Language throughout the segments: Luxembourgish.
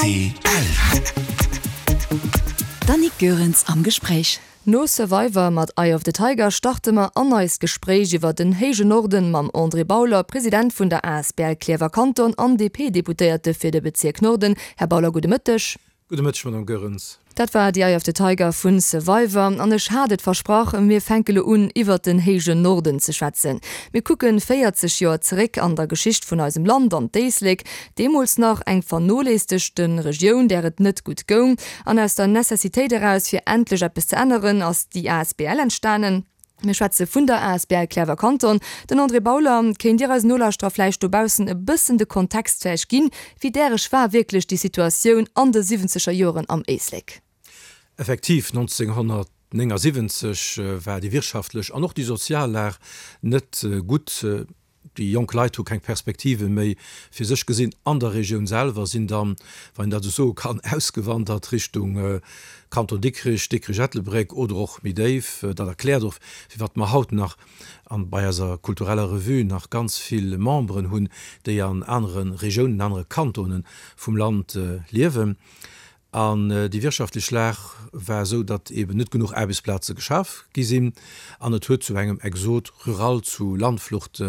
Rtl. D'Annick Goerens am Gespréich. No Survivor mat Eye of the Tiger starte mer an eist Gespréich iwwer den héijen Norden mam André Bauler, President vun der asbl Klierfer Kanton an DP-Deputéierte fir de Bezierk Norden. Här Bauler, gudde Mëtteg. Gudde Mëtteg, Madame Goerens. Dat war The Eye of the Tiger vu Survivor. An ech hat et versprach, mir fänke lo un, iwwert den héijen Norden ze schwätzen. Mir kucken 40 Joer zeréck an der Geschicht vun eisem Land, an d'Éislek, deemools nach eng vernoléissegte Regioun, där et net gutt goung. An aus der Necessitéit eraus, fir endlech eppes ze änneren, ass déi asbl entstanen. Mir schwätze vun der asbl Klärwer Kanton. Den André Bauler, kéint Dir eisen Nolauschterer vläicht dobaussen e bëssen de Kontext vläicht ginn, wéi däreg war wierklech déi Situatioun an de siwwenzeger Joren am Éislek? Effektiv, 1979 war déi wirtschaftlech an och déi sozial Lag net gutt. Déi jonk Leit hu keng Perspektive méi fir sech gesinn an der Regioun selwer, sinn dann, wann een dat esou soe kann, ausgewandert Richtung Kanton Dikrich, Dikrich-Ettelbréck oder och méi déif. Dat erkläert och, firwat mer haut nach an bei eiser kultureller Revue nach ganz vill Memberen hunn, déi an anere Regiounen, anere Kantone vum Land liewen. An déi wirtschaftlech Lag war esou, datt eben net genuch Aarbechtsplaze geschaf gi sinn an et huet zu engem Exode rural, zu Landflucht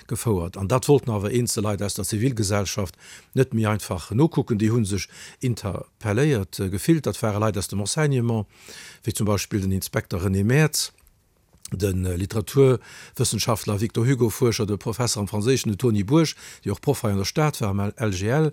gefouert. An dat wollten awer eenzel Leit aus der Zivilgesellschaft net méi einfach nokucken. Déi hu sech interpelléiert gefillt. Dat ware Leit aus dem Enseignement, wéi zum Beispill den Inspekter René Maertz, de Literaturwëssenschaftler Victor Hugo Fuerscher, de Professer am Franséischen, de Tony Bourg, dee och Proff hei an der Stad war am LGL,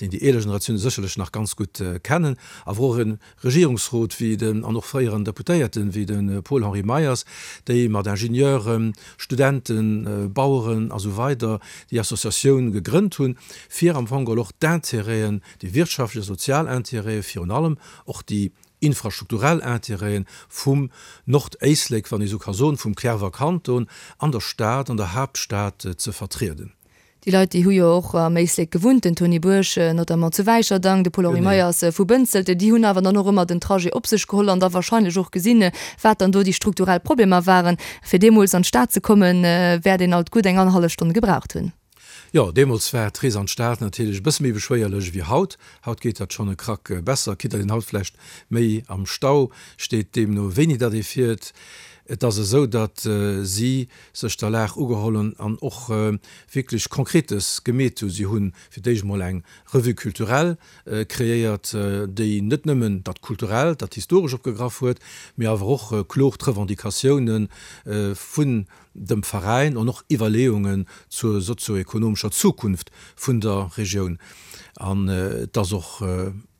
deen déi eeler Generatioune sécherlech nach ganz gutt kennen, awer och e Regierungsrot wéi den an och fréieren Deputéierten wéi de Paul-Henri Meyers, déi mat Ingenieuren, Studenten, Baueren a sou weider déi Associatioun gegrënnt hunn, fir am Fong geholl och d'Intérêten, déi wirtschaftlech a sozial Intérêten, virun allem och déi infrastrukturell Intérêten vum Nordéislek, wann ee sou ka soen, vum Clerwer Kanton an der Stad, an der Haaptstad ze vertrieden. Déi Leit, déi hu jo och am Éislek gewunnt, den Tony Bourg notamment zu Wäicherdang, de Paul-Henri Meyers vu Bënzelt, déi hunn awer dann och ëmmer den Trajet op sech geholl an da wahrscheinlech och gesinn, wat dann do déi strukturell Problemer waren. Fir deemools an d'Stad ze kommen, wäert een alt gutt eng annerhallef Stonn gebraucht hunn. Jo, deemools war d'Rees an d'Stad natierlech e bësse méi beschwéierlech ewéi haut. Haut geet dat schonn e Krack besser, quitte datt een haut vläicht méi am Stau steet, deemno wéini datt ee fiert. Et ass esou, datt si sech der Lag ugeholl hunn an och wierklech Konkretes gemeet hunn. Si hunn fir d'éischt emol eng Revue culturelle kreéiert, déi net nëmmen dat Kulturellt, dat Historesch opgegraff huet, mee awer och kloer d'Revendicatioune vun dem Veräin an och Iwwerleeungen zur sozioekonomescher Zukunft vun der Regioun. An et ass och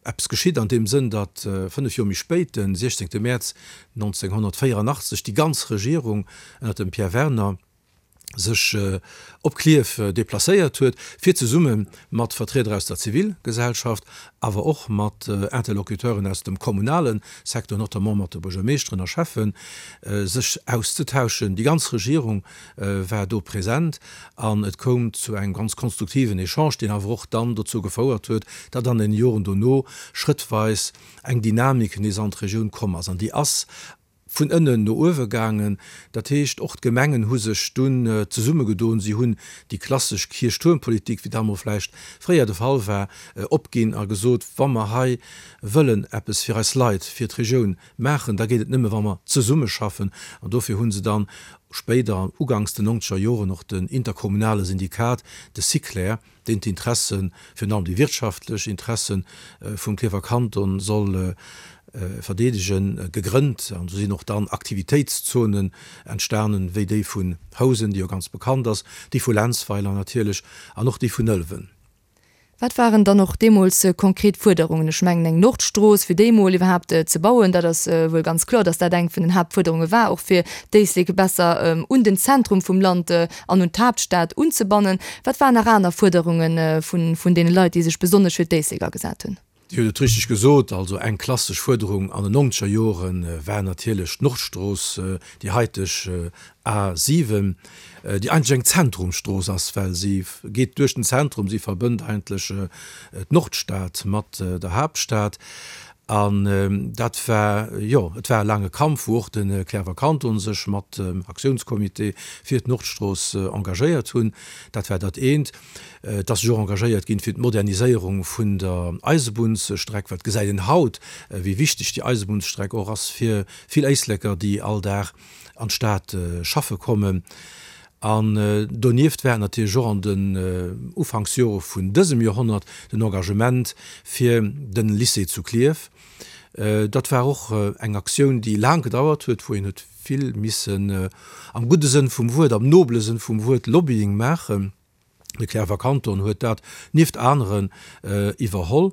eppes geschitt an deem Sënn, datt 5 Joer méi spéit, de 16 Mäerz 1984, déi ganz Regierung ënner dem Pierre Werner sech op Klierf deplacéiert huet, fir zesumme mat Vertrieder aus der Zivilgesellschaft, awer och mat Interlocuteuren aus dem kommunale Secteur, notamment mat de Buergermeeschteren a Schäffen, sech auszetauschen. Déi ganz Regierung war do present an et koum zu engem ganz konstruktiven Echange, deen awer och dann dozou gefouert huet, datt an den Joren dono schrëttweis eng Dynamik nees an d'Regioun komm ass. An déi ass vun ënnen no uewe gaangen. Dat heescht, och d'Gemengen hu sech dunn zesummegedoen, si hunn déi klassesch Kierchtuermpolitik, wéi dat emol vläicht fréier de Fall war, opginn a gesot, wa mer hei wëllen eppes fir eis Leit, fir d'Regioun maachen, da geet et nëmme wa mer zesummeschaffen. An dofir hu se dann spéider, uganks den nonzeger Joren, och den interkommunale Syndikat, de SICLER, deen d'Interessen, virun allem déi wirtschaftlech Interessen vum Klierfer Kanton soll verdeedegen, gegrënnt. An do sinn och dann Aktivitéitszonen entstanen, wéi déi vun Housen, déi jo ganz bekannt ass, déi vu Lenzweiler natierlech an och déi vun Ëlwen. Wat waren dann och deemools konkret Fuerderungen? Ech mengen, eng Nordstrooss, fir déi emol iwwerhaapt ze bauen, dat ass wuel ganz kloer, datt dat eng vun den Haaptfuerderunge war, och fir d'Éislek besser un den Zentrum vum Land an un d'Haaptstad unzebannen. Wat waren nach aner Fuerderunge vun deene Leit, déi sech besonnesch fir d'Éislek agesat hunn? Dir hutt et richteg gesot, also eng klassesch Fuerderung an den nonzeger Jore war natierlech d'Nordstrooss, déi haiteg A 7, déi eigentlech eng Zentrumsstrooss ass, well si geet duerch den Zentrum, si verbënnt eigentlech d'Nordstad mat der Haaptstad. An dat war, jo, et war e laange Kampf, wou och de Cliärrwer Kanton sech mat dem Aktiounscomité fir d'Nordstrooss engagéiert hunn. Dat war dat eent. Et ass sech och engagéiert ginn fir d'Moderniséierung vun der Eisebunnsstreck, well et gesäit een haut, wéi wichteg déi Eisebunnsstreck och ass fir vill Éisleker, déi all Dag an d'Stad schaffe kommen. An donieft war et natierlech och an den Ufanksjore vun dësem Joerhonnert den Engagement fir den Lycée zu Klierf. Dat war och eng Aktioun, déi laang gedauert huet, wou een huet vill missen am gudde Sënn vum Wuert, am nobele Sënn vum Wuert Lobbying maachen. De Cliärrwer Kanton huet dat nieft aneren iwwerholl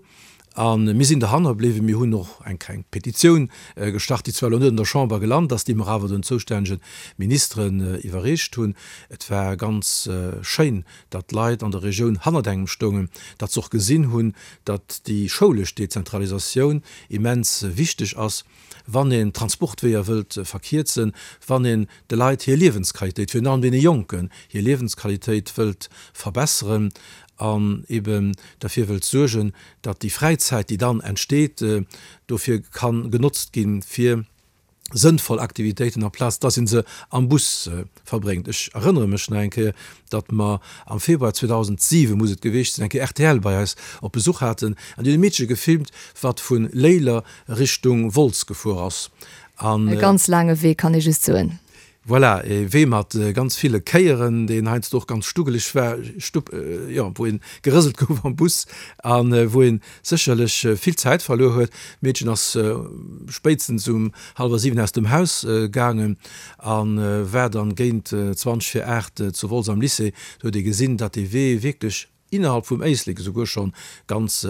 a mir sinn derhanner bliwwen. Mir hunn och eng kleng Petitioun gestart, déi zwar elo net an der Chamber gelant ass, déi mer awer den zoustännege Ministeren iwwerreecht hunn. Et war ganz schéin, datt d'Leit an der Regioun hannert engem stoungen, datt se och gesinn hunn, datt déi schoulesch Dezentralisatioun immens wichteg ass. wann een d'Transportweeër wëllt verkierzen, wann een de Leit hir Liewensqualitéit, virun allem deene Jonken hir Liewensqualitéit wëllt verbesseren an eben derfir wëllt suergen, datt déi Fräizäit, déi dann entsteet, dofir ka genotzt ginn, fir sënnvoll Aktivitéiten, amplaz datt ee se am Bus verbréngt. Ech erënnere mech nach eng Kéier, datt mer am Februar 2007, muss et gewiescht sinn, eng Kéier rtl bei eis op Besuch haten an déi hunn e Meedche gefilmt, wat vu Léiler Richtung Wolz gefuer ass. An. E ganz laange Wee, kann ee just soen. Voilà, e Wee mat ganz ville Kéieren, deen heiansdo och ganz stuggeleg war, stupp, jo, wou ee gerëselt gouf am Bus a wou ee sécherlech vill Zäit verluer huet. D'Meedchen ass spéitstens um hallwer 7 aus dem Haus gaangen a war dann géint 20 vir 8 zu Wolz am Lycée. Do huet ee gesinn, datt dee Wee wierklech innerhalb vum Éislek esouguer schonn ganz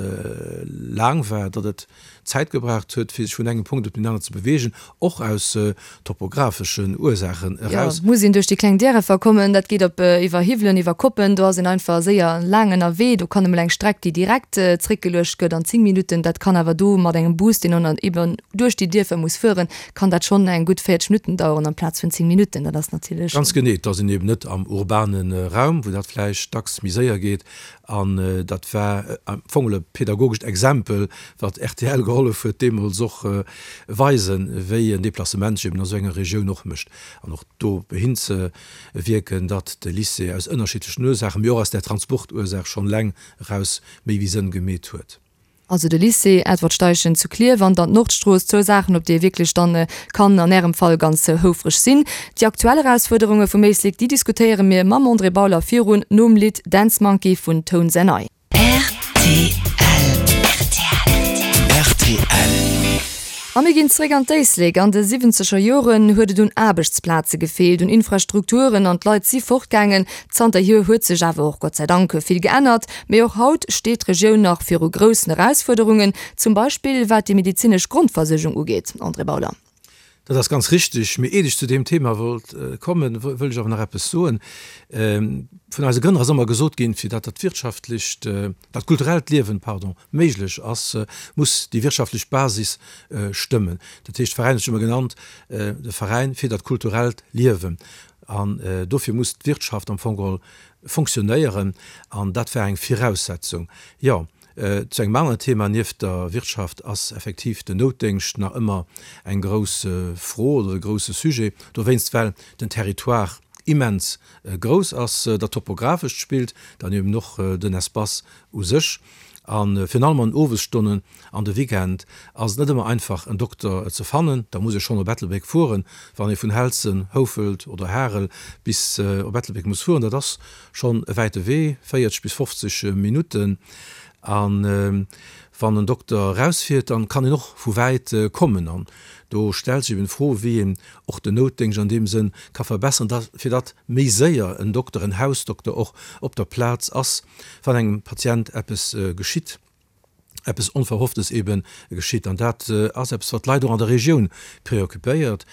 laang war, datt et Zäit gebraucht huet, fir sech vun engem Punkt op deen aneren ze beweegen, och aus topographeschen Ursaachen eraus. Jo, muss een duerch déi kleng Därefer kommen, dat geet op iwwer Hiwwelen, iwwer Koppen, do ass een einfach séier laang ënnerwee. Do kann emol eng Streck, déi direkt zréckgeluecht gëtt an 10 Minutten, dat kann awer do mat engem Bus, deen dann eben duerch déi Dierfer muss fueren, kann dat schonn eng gutt 40 Minutten daueren amplaz vun 10 Minutten. Dat ass natierlech. Ganz genee, et ass een eben net am urbane Raum, wou dat vläicht dacks méi séier geet. An dat war am Fong e pädagogescht Exempel, wat rtl gehollef huet deemools och weisen, wéi en Deplacement sech eben a sou enger Regioun och mécht. An och do hinzewierken, datt de Lycée aus ënnerschiddlechen Ursaachen, mee och aus där Transportursaach schonn eleng eraus méi wéi Sënn gemeet huet. Also de Lycée Edward Steichen zu Klierf an dann d'Nordstrooss, zwou Saachen, op déi ee wierklech dann kann an Ärem Fall ganz houfreg sinn. Déi aktuell Erausfuerderunge vum Éislek, déi diskutéiere mir mam André Bauler virun nom Lidd Dance Monkey vun Tones and I. Rtl. Rtl. A mir ginn zeréck an d'Éislek. An de siwwenzeger Joren huet et un Aarbechtsplaze gefeelt, un Infrastrukturen an d'Leit si fortgaangen. Zanterhier huet sech awer och Gott sei Dank vill geännert. Mee och haut steet d'Regioun nach viru groussen Erausfuerderungen, zum Beispill wat déi medezinesch Grondversuergung ugeet. André Bauler. Dat ass ganz richtig. Mee iert ech zu deem Thema wollt kommen, wëll ech awer nach eppes soen. Vun eise Grënner ass ëmmer gesot ginn, fir datt dat wirtschaftlecht, dat kulturellt Liewen, pardon, méiglech ass, muss déi wirtschaftlech Basis stëmmen. Dat heescht, de Veräin huet sech ëmmer genannt, de Veräin fir dat kulturellt Liewen. An dofir muss d'Wirtschaft am Fong geholl fonctionnéieren an dat war eng Viraussetzung. Jo, zu engem aneren Thema nieft der Wirtschaft ass effektiv den Noutdéngscht nach ëmmer eng grouss Fro oder e grousse Sujet, dowéinst well den Territoire immens grouss ass, dat Topografescht spillt dann eben och den Espace u sech a virun allem an den Owesstonnen an de Weekend ass et net ëmmer einfach en Dokter ze fannen. Da muss ee schonn op Ettelbréck fueren, wann ee vun Helzen, Houfelt oder Harel bis op Ettelbréck muss fueren. Dat ass schonn e wäite Wee, 40 bis 50 Minutten. A wann en Dokter erausfiert, dann kann een och vu wäit kommen. An do stellt sech eben d'Fro, wéi een och den Noutdéngscht an deem Sënn ka verbesseren, da fir datt méi séier en Dokter, en Hausdokter och op der Plaz ass, wann engem Patient eppes geschitt. eppes Onverhofftes ebe geschitt. An dat ass eppes, wat d'Leit och an der Regioun preoccupéiert.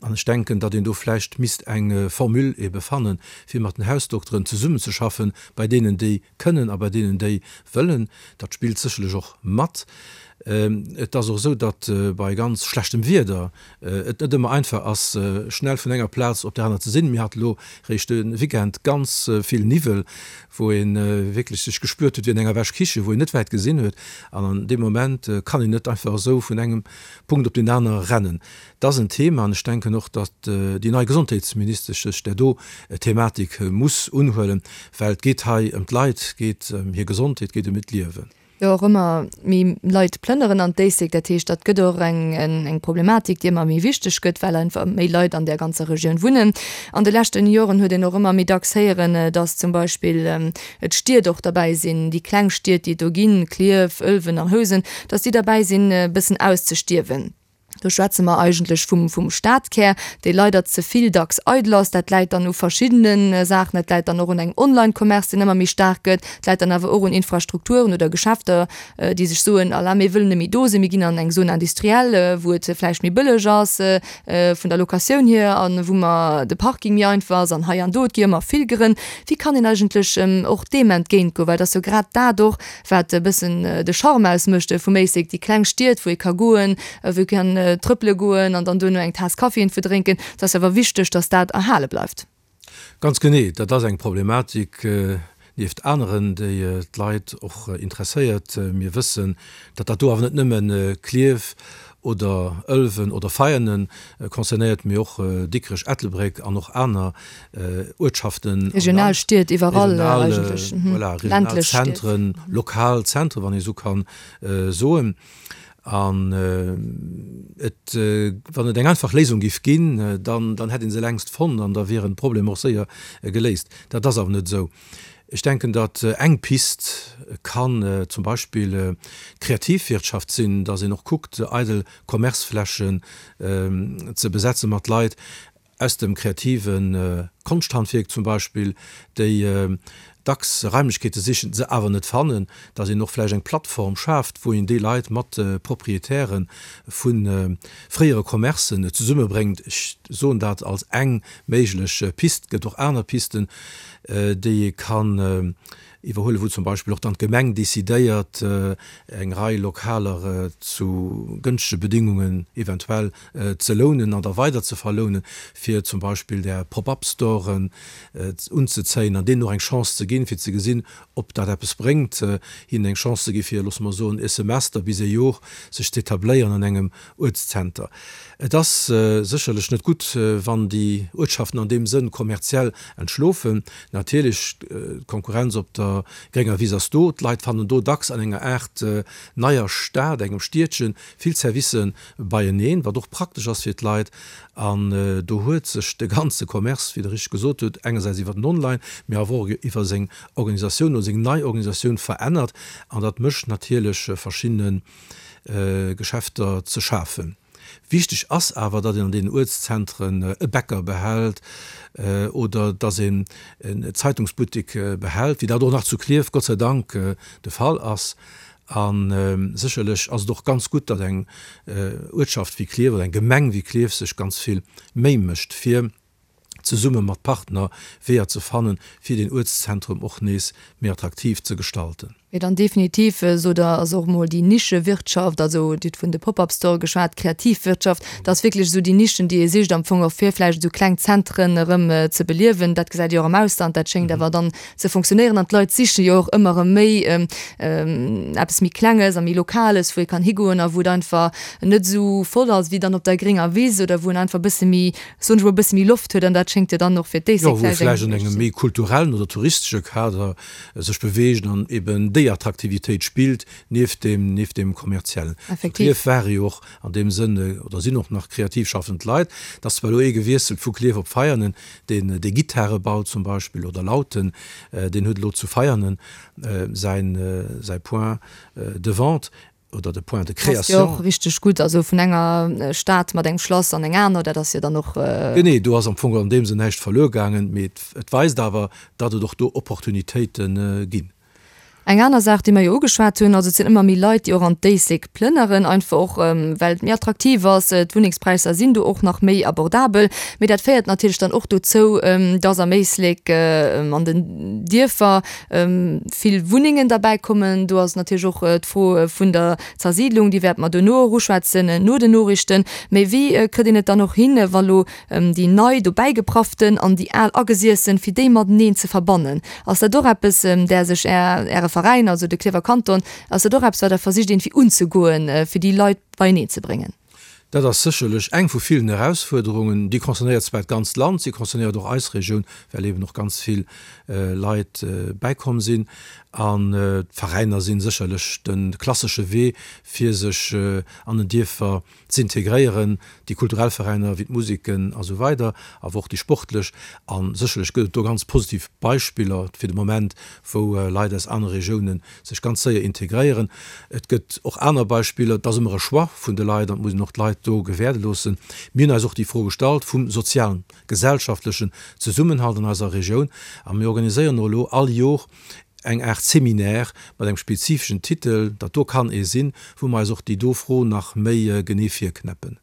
An ech denken, datt een do vläicht misst eng Formule ebe fannen, fir mat den Hausdokteren zesummenzeschaffen, bei deenen, déi kënnen a bei deenen, déi wëllen. Dat spillt sécherlech och mat. Et ass och esou, datt bei ganz schlechtem Wieder et net ëmmer einfach ass, schnell vun enger Plaz op där aner ze sinn. Mir hate lo réischt de Weekend ganz vill Niwwel, wou ee wierklech sech gespuert huet wéi an enger Wäschkiche, wou een net wäit gesinn huet. An an deem Moment kann een net einfach esou vun engem Punkt op deen anere rennen. Dat ass en Thema an ech denken och, datt déi nei Gesondheetsministesch sech där do Thematik muss unhuelen, well et geet hei ëm d'Leit, et geet ëm hir Gesondheet, et geet ëm hiert Liewen. Jo och ëmmer méi Leit plënneren an d'Éislek. Dat heescht, dat gëtt och eng Problematik, déi ëmmer méi wichteg gëtt, well einfach méi Leit an där ganzer Regioun wunnen. An de leschten Joren huet een och ëmmer méi dacks héieren, datt zum Beispill d'Stied och derbäi sinn, déi kleng Stied, déi et do ginn, Klierf, Ëlwen an Housen, datt déi derbäi sinn e bëssen auszestierwen. Do schwätze mer eigentlech vum, vum Stadkär, dee leider ze vill dacks eidel ass. Dat läit dann u verschiddene Saachen. Dat läit dann och un engem Online-Commerce, deen ëmmer méi staark gëtt. Et läit dann awer och un Infrastrukturen oder Geschäfter, déi sech soen, Ala, mir wëllen net méi do sinn, mir ginn an eng Zone industrielle, wou et vläicht méi bëlleg ass vun der Locatioun hier a wou mer de Parking méi einfach ass an hei an do. Et gi ëmmer vill Grënn. Wéi kann een eigentlech och deem entgéintgoen? Well et ass jo grad dat och, wat e bëssen de Charme ausmécht vum Éislek, déi kleng Stied, wou ee ka goen, wou ee kann trëppele goen an dann duerno eng Taass Kaffi iergendwou drénken. Et ass awer wichteg, datt dat erhale bleift. Ganz genee, dat ass eng Problematik nieft aneren, déi d'Leit och interesséiert. Mir wëssen, datt dat do awer net nëmme Klierf oder Ëlwen oder Veianen concernéiert, mee och Dikrech, Ettelbréck an och aner Uertschaften am Land. Regional Stied iwwerall eigentlech. Voilà, regional Zentren, lokal Zentren, wann ee esou ka soen. An et, wann et eng einfach Léisung géif ginn, dann, dann hätt ee se längst fonnt an da wieren d'Problemer och séier geléist. Dat ass awer net esou. Ech denken, datt eng Pist kann zum Beispill d'Kreativwirtschaft sinn, datt een och kuckt, eidel Commerceflächen ze besetze mat Leit aus dem kreative Konschthandwierk zum Beispill, déi dacks Raimlechkeete sichen, se awer net fannen, datt een och vläicht eng Plattform schaaft, wou een déi Leit mat Proprietäre vu fréiere Commercen zesummebréngt. Ech soen dat als eng méiglech Pist. Et gëtt och aner Pisten, déi ee kann iwwerhuelen, wou zum Beispill och dann d'Gemeng decidéiert, eng Rei Lokaler zu gënschtege Bedingungen eventuell ze lounen an da weider ze verlounen, fir zum Beispill där Pop-up-Storen unzezéien an deenen och eng Chance ze ginn, fir ze gesinn, ob dat eppes bréngt, hinnen eng Chance ze gi fir, loosse mer soen, e Semester bis e Jor sech z'etabléieren an engem Uertszenter. Et ass sécherlech net gutt, wann déi Uertschaften an deem Sënn kommerziell entschlofen. Natierlech, d'Konkurrenz op der grénger Wiss ass do. D'Leit fannen do dacks an enger Aart neier Stad, engem Stiedchen, vill Servicë beieneen, wat och praktesch ass fir d'Leit. An do huet sech de ganze Commerce, wéi Der richteg gesot hutt, engersäits iwwer den Online, mee awer och iwwer seng Organisatioun oder seng nei Organisatioun verännert. An dat mécht natierlech verschiddene Geschäfter ze schafen. Wichteg ass awer, datt een an deenen Uertszentren e Bäcker behält oder datt een en Zeitungsbuttek behält, wéi dat och nach zu Klierf Gott sei Dank de Fall ass. A sécherlech ass et och ganz gutt, datt eng Uertschaft wéi Klierf oder eng Gemeng wéi Klierf sech ganz vill Méi mécht, fir zesumme mat Partner Weeër ze fannen, fir den Uertszentrum och nees méi attraktiv ze gestalten. Mee dann definitiv, sot Der, ass och emol déi Nischewirtschaft, also Dir hutt vun de Pop-up-Store geschwat, d'Kreativwirtschaft, dat ass wierklech esou déi Nischen, déi ee sicht am Fong och, fir vläicht esou kleng Zentren erëm ze beliewen. Dat gesäit ee jo och am Ausland, dat schéngt awer dann ze funktionéieren an d'Leit siche jo och ëmmer erëm méi eppes méi Klenges a méi Lokales, wou ee kann higoen a wou et einfach net esou voll ass wéi dann op der grénger Wiss oder wou en einfach e bësse méi soen ech mol, e bësse méi Loft huet an dat schéngt jo dann och fir d'Éislek Jo, wou ee vläicht an engem méi kulturellen oder touristesche Kader sech beweegt an eben déi Attraktivitéit spillt, nieft deem, nieft deem kommerziellen. Zu Klierf ware jo och an deem Sënn, oder sinn och nach kreativ schaffend Leit. Et ass zwar elo ee gewiesselt vu Klierf op Veianen, deen dee Gittare baut zum Beispill oder Lauten, deen huet elo zu Veianen säin, säi Point de vente. Oder de Point de Passt jo création. och richteg gutt, also vun enger Stad mat engem Schlass an eng aner, dat ass jo dann och. Genee, do ass am Fong an deem Sënn näischt verluer gaangen, mee et weist awer, datt et och do Opportunitéite ginn. Eng aner Saach, déi mer jo ugeschwat hunn, also et sinn ëmmer méi Leit, déi och an d'Éislek plënneren, einfach och well et méi attraktiv ass, d'Wunnengspräisser sinn do och nach méi abordabel. Mee dat féiert natierlech dann och dozou, dass am Éislek an den Dierfer vill Wunnengen derbäi kommen. Do ass natierlech och d'Fro vun der Zersiidlung, déi wäerte mer duerno och uschwätzen, no den Noriichten. Mee wéi kritt een et dann och hin, wa lo déi nei dobäigeprafften an déi al agesiessen, fir déi mateneen ze verbannen. Ass dat och eppes, där sech Är, Äre Veräin, also de Klierfer Kanton, ass dat och eppes, wat Der versicht iergendwéi unzegoen, fir déi Leit beieneen ze bréngen? Dat ass sécherlech eng vu villen Erausfuerderungen. Déi concernéiert zwar d'ganzt Land, si concernéiert och eis Regioun, well eben och ganz vill Leit bäikomm sinn. An d'Veräiner si sécherlech de klassesche Wee, fir sech an den Dierfer z'integréieren, déi kulturell Veräiner wéi d'Museken a sou weider, awer och déi sportlech. A sécherlech gëtt et do ganz positiv Beispiller fir de Moment, wou Leit aus anere Regioune sech ganz séier integréieren. Et gëtt och aner Beispiller. Et ass ëmmer e Choix vun de Leit an et muss een och d'Leit do gewäerde loossen. Mir hunn eis och déi Fro gestallt vum sozialen, gesellschaftlechen Zesummenhalt an eiser Regioun a mir organiséieren och elo all Jor eng Aart Seminaire mat engem spezifeschen Titel, dat do kann ee sinn, wou mer eis och déi do Fro nach méi genee virknäppen.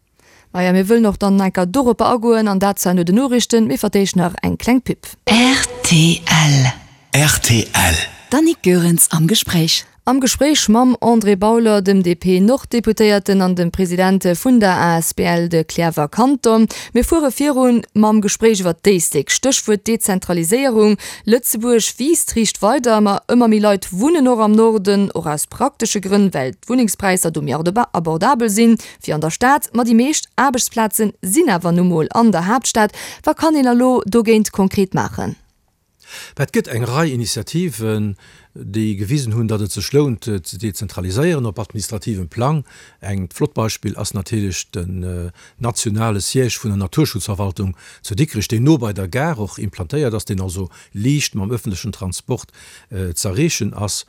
Maja, mir wëllen och dann enker doropper agoen, an dat zwar no den Noriichten, mee vertéischt nach eng kleng Pub. Rtl. Rtl. D'Annick Goerens am Gespréich. Am Gespréich mam André Bauler, dem DP-Norddeputéierten an dem President vun der asbl De Cliärrwer Kanton. Mir fuere virun mam Gespréich iwwer d'Éislek. Stéchwuert Dezentraliséierung. Lëtzebuerg wiisst riicht weider, ma ëmmer méi Leit wunnen och am Norden, och aus praktesche Grënn, well d'Wunnengspräisser do méi abordabel sinn wéi an der Stad. Ma déi meescht Aarbechtsplaze sinn awer nu mol an der Haaptstad. Wat kann een elo dogéint konkret maachen? Mä et gëtt eng Rei Initiativen, déi gewisen hunn, datt et sech lount ze dezentraliséieren op administrativem Plang. Eng flott Beispill ass natierlech den nationale Siège vun der Naturschutzverwaltung zu Dikrech, deen no bei der Gare och implantéiert ass, deen also liicht mam öffentlechen Transport z'erreechen ass.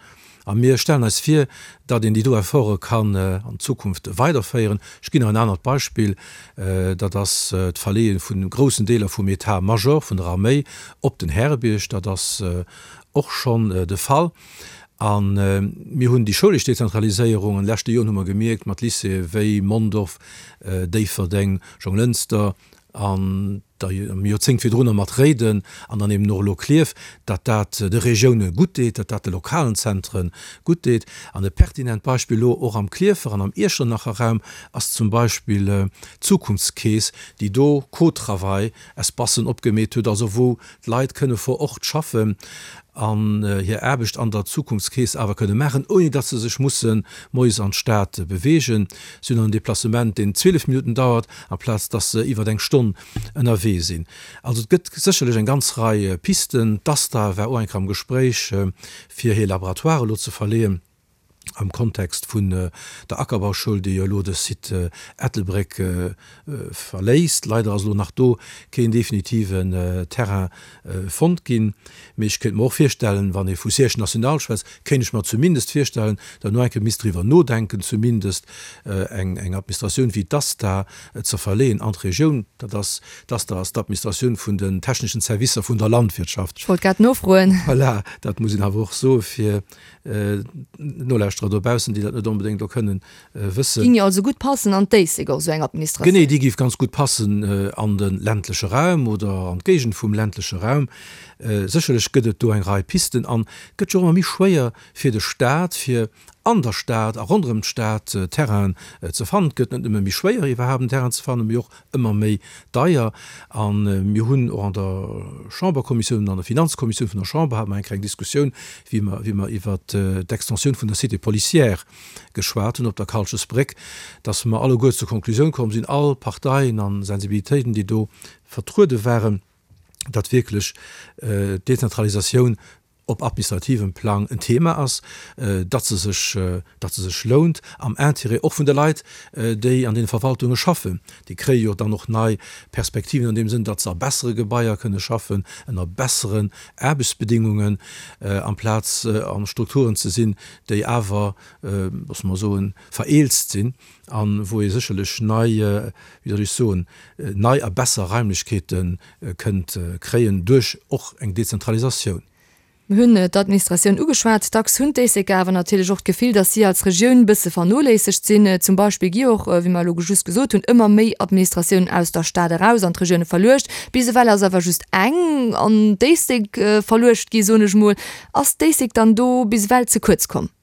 A mir stellen eis vir, datt een déi do Efforte kann an Zukunft weiderféieren. Ech ginn nach en anert Beispill, dat ass d'Verleeë vu groussen Deeler vum État-major vun der Arméi op den Härebierg. Dat ass och schonn de Fall. A mir hunn déi schoulesch Dezentraliséierung an de leschte Joren hu mer gemierkt, mat Lycéeë wéi Mondorf, Déifferdeng, Jonglënster an der Joerzéngt virdrunner mat Réiden an dann eben och elo Klierf, datt dat de Regioune gutt deet, datt dat de lokalen Zentre gutt deet. An e pertinent Beispill elo och am Klierfer an am Iechternacher Raum ass zum Beispill d'Zukunftskeess, déi do Co-travail-Espacen opgemeet huet, also wou d'Leit kënne vor Ort schaffen an hir Aarbecht an der Zukunftskeess awer kënne maachen, ouni datt se sech musse moies an d'Stad beweegen. Si hunn dann en Deplacement, deen 12 Minutten dauert, amplaz datt se iwwer eng Stonn ënnerwee sinn. Also et gëtt sécherlech eng ganz Rei Pisten. D'ASTA war och eng Kéier am Gespréich, fir hir Laboratoire elo ze verleeën. am Kontext vun der Ackerbauschoul, déi jo elo de Site Ettelbréck verléisst. Leider ass elo nach do keen definitiven Terrain fonnt ginn. Mee ech kéint mer och virstellen, wann ee vu Siège national schwätzt, kéint ech mer zumindest virstellen, datt no eng Kéier misst driwwer nodenken, zumindest eng Administratioun wéi d'ASTA ze verleeën an d'Regioun. Dat ass, d'ASTA ass d'Administratioun vun den techneschen Servicer vun der Landwirtschaft. Ech wollt grad nofroen. Voilà, dat muss een awer och soe fir Nolauschterer dobaussen, déi dat net onbedéngt elo kënnen wëssen. Ging jo also gutt passen an d'Éislek och, esou eng Administratioun. Genee, déi géif ganz gutt passen an de ländleche Raum oder an d'Géigend vum ländleche Raum. Sécherlech gëtt et do eng Rei Pisten an et gëtt jo och ëmmer méi schwéier fir de Staat, fir an der Stad a ronderëm d'Stad Terrainen ze fannen. Et gëtt net nëmme méi schwéier iwwerhaapt en Terrain ze fannen, mee och ëmmer méi deier. A mir hunn och an der Chamberkommissioun, an der Finanzkommissioun vun der Chamber hate mer eng kleng Diskussioun, wéi mer, wéi mer iwwert d'Extensioun vun der Cité policière geschwat hunn op der Kalchesbréck, dass mer alleguer zur Konklusioun komm sinn, all Parteien a Sensibilitéiten, déi do vertruede waren, datt wierklech d'Dezentralisatioun op administrativem Plang en Thema ass, datt se sech, datt se sech lount, am Intérêt och vun de Leit, déi an deene Verwaltunge schaffen. Déi kréie jo dann och nei Perspektiven an deem Sënn, datt se a bessere Gebaier kënne schaffen, ënner besseren Aarbechtsbedingungen, amplaz a Strukturen ze sinn, déi awer, loosse mer soen, vereelzt sinn a wou ee sécherlech nei, wéi soll ech soen, nei a besser Raimlechkeete kënnt kréien duerch och eng Dezentralisatioun. Mir hunn d'Administratioun ugeschwat. Dacks hunn d'Éisleker awer natierlech och d'Gefill, datt si als Regioun bësse vernoléissegt sinn. Zum Beispill gi och, wéi mer elo just gesot hunn, ëmmer méi Administratiounen aus der Stad eraus an d'Regioune verluecht. Bis ewell ass awer just eng an d'Éislek verluecht gi, soen ech mol. Ass d'Éislek dann do bis ewell ze kuerz komm?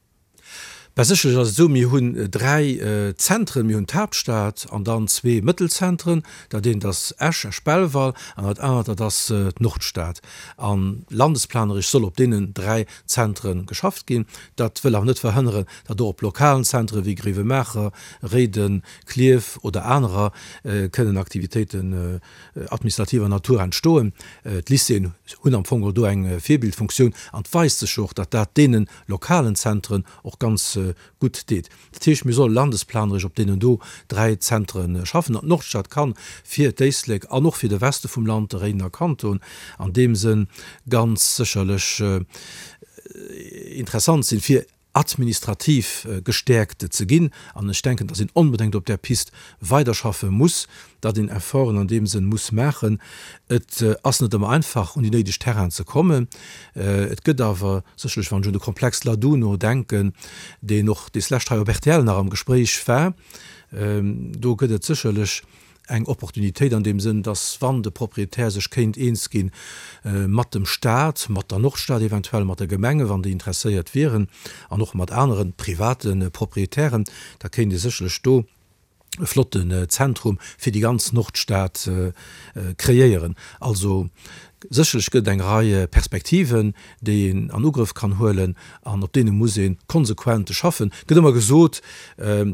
Bah, sécherlech ass et esou, mir hunn 3 Zentren, mir hunn d'Haaptstad an dann zwee Mëttelzentren, dat eent ass Esch, Esch-Belval, an dat anert, dat ass d'Nordstad. A landesplaneresch soll op deenen 3 Zentre geschafft ginn. Dat wëll awer net verhënneren, datt och op lokalen Zentre wéi Gréiwemaacher, Réiden, Klierf oder anerer kënnen Aktivitéiten administrativer Natur entstoen. D'Lycéeën hunn am Fong och do eng Virbildfunktioun an et weist sech jo och, datt dat deenen lokalen Zentren och ganz gutt deet. Dat heescht, mir solle landesplaneresch op deenen do 3 Zentre schaffen. An d'Nordstad kann fir d'Éislek an och fir de Weste vum Land, de Réidener Kanton, an deem Sënn ganz sécherlech interessant sinn, fir administrativ gestäerkt ze ginn. An ech denken, dass een onbedéngt op där Pist weiderschaffe muss, datt een Efforten an deem Sënn muss maachen. Et ass net ëmmer einfach, un déi néideg Terrainen ze kommen. Et gëtt awer sécherlech, wann ech un de Komplex Laduno denken, deen och deslescht hei op rtl nach am Gespréich war, do gëtt et sécherlech eng Opportunitéit an deem Sënn, datt wann de Proprietär sech kéint eens gi mat dem Stat, mat der Nordstad eventuell, mat de Gemengen, wann déi interesséiert wieren, an och mat anere private Proprietären, da kéint ee sécherlech do e flotten Zentrum fir déi ganz Nordstad kreéieren. Also sécherlech gëtt et eng Rei Perspektiven, déi een an Ugrëff kann huelen an op deene muss ee konsequent schaffen. Et gëtt ëmmer gesot,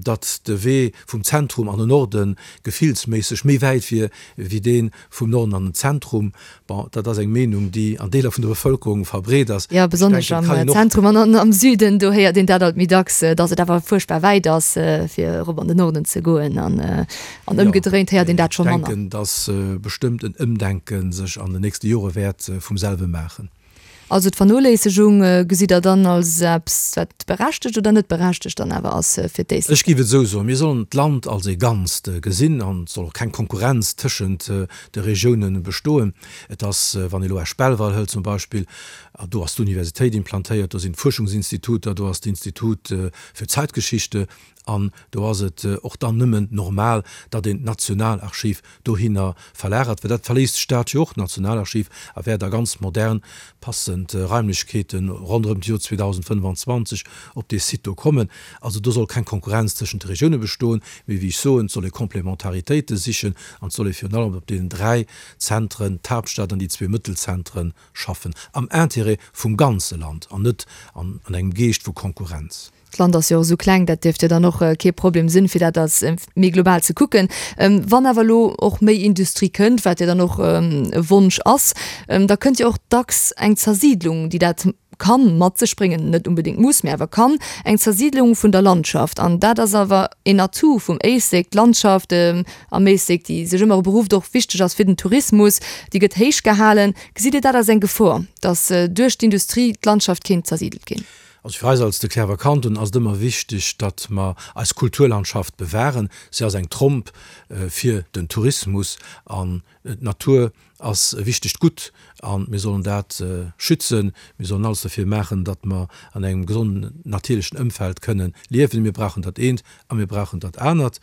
datt de Wee vum Zentrum an den Norde gefillsméisseg méi wäit wier wéi dee vum Norden an den Zentrum. Bon, dat ass eng Meenung, déi an Deeler vun der Bevëlkerung verbreet ass. Jo, besonnesch am Zentrum an am Süden, do héiert een dat alt méi dacks, datt et awer fuerchtbar wäit ass, fir erop an den Norden ze goen. An ëmgedréint héiert een dat scho manner. Ech denken, datt bestëmmt en Ëmdenke sech an den nächste Jore wäert vum selwe maachen. Also d'Vernoléissegung gesitt Der dann als eppes, wat berechtegt oder net berechtegt dann awer ass fir d'Éislek? Ech géif et esou soen, Mir sollen d'Land als ee Ganzt gesinn an et soll och keng Konkurrenz tëschent de Regiounen bestoen. Et ass, wann ee elo Esch-Belval hëlt zum Beispill, do ass d'Universitéit implantéiert, do sinn d'Fuerschungsinstituter, do ass d'Institut für Zeitgeschichte an do ass et och dann nëmmen normal, datt een d'Nationalarchiv dohinner verlagert, well dat verléisst d'Stad jo och, d'Nationalarchiv, a wäert a ganz modern, passend Raimlechkeete ronderëm d'Joer 2025 op dee Site do kommen. Also do soll keng Konkurrenz tëschent de Regioune bestoen, mee wéi ech soen, et soll ee Komplementaritéite sichen an et soll ee virun allem op deenen 3 Zentren, d'Haaptstad an déi zwee Mëttelzentren, schaffen, am Intérêt vum ganze Land an net an engem Geescht vu Konkurrenz. D'Land ass jo och esou kleng, dat dierft jo dann och kee Problem sinn, fir dat als méi global ze kucken. Wann awer elo och méi Industrie kënnt, wat jo dann och e Wonsch ass, da kënnt jo och dacks eng Zersiidlung, déi dat kann mat sech bréngen, net unbedéngt muss, mä awer kann, eng Zersiidlung vun der Landschaft. An dat ass awer een Atout vum Éislek, d'Landschaft am Éislek, déi sech ëmmer beruft, och wichteg ass fir den Tourismus, déi gëtt héich gehalen. Gesitt Dir dat als eng Gefor, datt duerch d'Industrie d'Landschaft kéint zersidelt ginn? Also fir eis als De Cliärrwer Kanton ass et ëmmer wichteg, datt mer eis Kulturlandschaft bewahren. Si ass eng Tromp fir den Tourismus an d'Natur ass e wichtegt Gutt a mir sollen dat schützen. Mir sollen alles derfir maachen, datt mer an engem gesonden natierlechen Ëmfeld kënnen liewen. Mir brauchen dat eent a mir brauchen dat anert.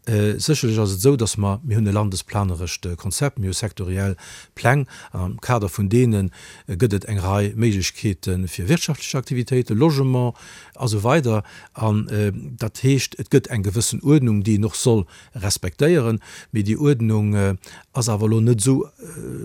Sécherlech ass et esou, datt mer, mir hunn e landesplanerescht Konzept, mir hu sektoriell Pläng an am Kader vun deene gëtt et eng Rei Méiglechkeete fir wirtschaftlech Aktivitéiten, Logement a sou weider. An dat heescht, et gëtt eng gewëssen Uerdnung, déi een och soll respektéieren. Mee déi Uerdnung ass awer elo net esou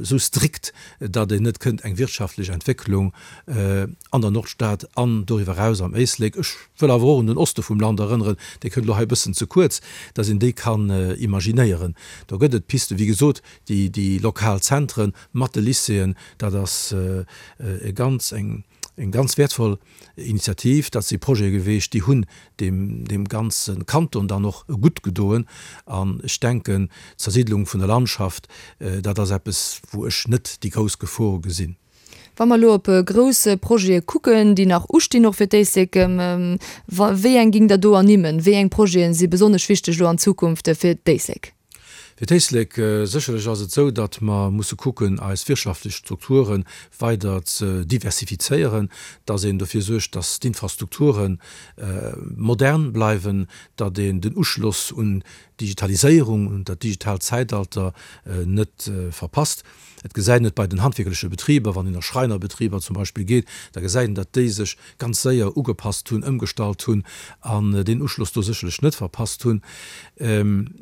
esou strikt, datt een net kënnt eng wirtschaftlech Entwécklung an der Nordstad an doriwwer eraus am Éislek, ech wëll awer och un den Oste vum Land erënneren, dee kënnt elo hei e bëssen ze kuerz, datt een déi kann imaginéieren. Do gëtt et Pisten, wéi gesot, déi déi lokal Zentren mat de Lycéeën, dat ass e ganz eng eng ganz wäertvoll Initiativ. Dat si Projete geweecht, déi hunn deem deem ganze Kanton dann och gutt gedoen. An ech denken, d'Zersiddlung vun der Landschaft, dat ass eppes, wou ech net déi grouss Gefor gesinn. Wa mer elo op grouss Projete kucken, déi nach ustinn, och fir d'Éislek, wéi eng géingt Der do ernimmen? Wéi eng Projete si besonnesch wichteg elo an Zukunft fir d'Éislek? Fir d'Éislek, sécherlech ass et esou, datt mer musse kucken, eis wirtschaftlech Strukture weider ze diversifizéieren, datt een dofir suergt, datt d'Infrastrukture modern bleiwen, datt een den Uschloss un d'Digitaliséierung, un dat digitaalt Zäitalter net verpasst. Et gesäit een et bei den handwierkleche Betriber, wann een a Schreinerbetriber zum Beispill geet, da gesäit een, datt déi sech ganz séier ugepasst hunn, ëmgestallt hunn an deen Uschloss do sécherlech net verpasst hunn.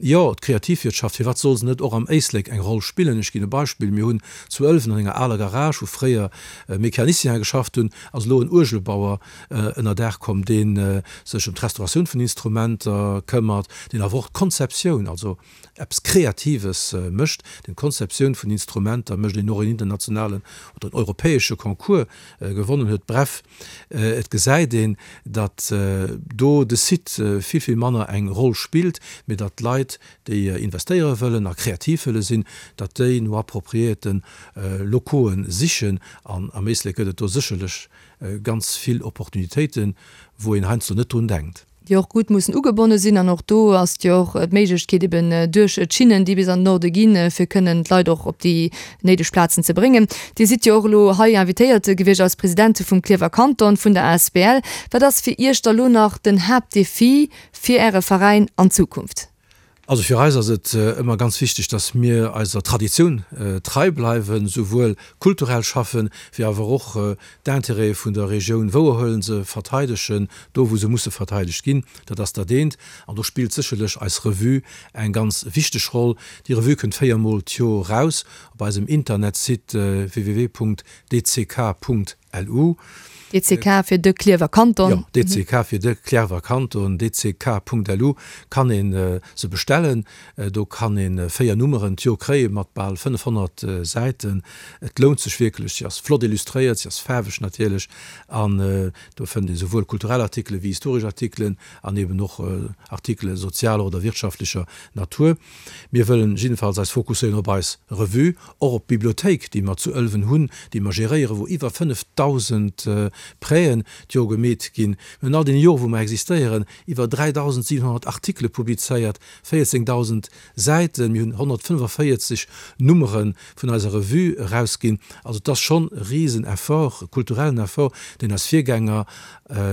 Jo, d'Kreativwirtschaft, firwat soll se net och am Éislek eng Roll spillen? Ech ginn e Beispill, Mir hunn zu Ëlwen an enger aler Garage, wou fréier Mecaniciene geschafft hunn, ass elo en Uergelbauer ënner Daach komm, dee sech ëm d'Restauratioun vun Instrumenter këmmert, deen awer och d'Konzeptioun, also eppes Kreatives mécht, deen d'Konzeptioun vun Instrumenter mécht, deen och en internationalen oder en europäesche Concours gewonnen huet. Bref, et gesäit een, datt do de Site vill, vill manner eng Roll spillt, mee datt d'Leit, déi investéiere wëllen a kreativ wëlle sinn, datt déi no appropriéierte Locoe sichen. An am Éislek gëtt et do sécherlech ganz vill Opportunitéiten, wou een heiansdo net drun denkt. Déi och gutt mussen ugebonne sinn. An och do ass jo och d'Méiglechkeet eben duerch d'Schinnen, déi bis an den Norde ginn, fir kënnen d'Leit och op déi néideg Plazen ze bréngen. Dir sidd jo och elo hei invitéiert gewiescht als President vum Klierfer Kanton, vun der asbl. Wat ass fir Iech da lo nach den Haaptdefi fir Äre Veräin an Zukunft? Also fir eis ass et ëmmer ganz wichteg, dass mir eiser Traditioun trei bleiwen, souwuel kulturell schaffen, wéi awer och d'Intérêtë vun der Regioun wouerhuelen, se verteidegen, do wou se musse verteidegt ginn. Dat ass dat eent. An do spillt sécherlech eis Revue eng ganz wichteg Roll. Déi Revue kënnt véiermol d'Jor raus op eisem Internetsite www.dck. LU. DCK fir de Klierwer Kanton. Jo, DCK fir de Klierwer Kanton, dck.lu kann ee se bestellen. Do kann ee 4 Nummeren d'Jor kréie mat bal 500 Säiten. Et lount sech wierklech. Si ass flott illustréiert, si ass faarweg natierlech an do fënnt ee souwuel kulturell Artikele wéi historesch Artikelen an eben och Artikele sozialer oder wirtschaftlecher Natur. Mir wëllen jiddefalls eis fokusséieren op eis Revue, och op d'Bibliothéik, déi mer zu Ëlwen hunn, déi mer geréieren, wou iwwer 5.000 Prêten d'Jor gemeet ginn. Mir hunn all deene Jore wou mer existéieren, iwwer 3.700 Artikele publizéiert, 14.000 Säiten. Mir hunn 145 Nummere vun eiser Revue erausginn. Also et ass schonn e risen Effort, e kulturellen Effort, deen eis Virgänger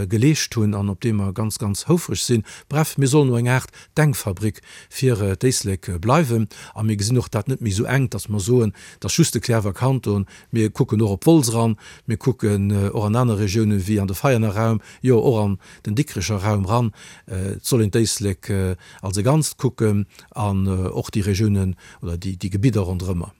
geleescht hunn an op dee mer ganz, ganz houfreg sinn. Bref, mir sollen no eng Aart Denkfabrik fir d'Éislek bleiwen. A mir gesinn och dat net méi esou enk, datt mer soen, et ass just de Cliärrwer Kanton. Mir kucken och op Wolz eran, mir kucken och an aner Regiounen wéi an de Veianer Raum, jo och an den Dikrecher Raum ran. Et soll een d'Éislek als e Ganzt kucken an och déi Regiounen oder déi Gebidder ronderëmmer.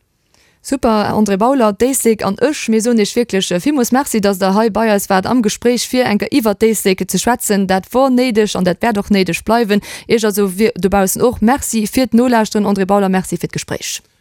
Super, André Bauler, d'Éislek an ech, mir soen Iech wierklech villmools Merci, dass Der hei bei eis waart am Gespréich, fir eng Kéier iwwert d'Éislek ze schwätzen. Dat wor néideg an dat wäert och néideg bleiwen. Iech also dobaussen och Merci fir d'Nolauschteren. André Bauler, Merci fir d'Gespréich.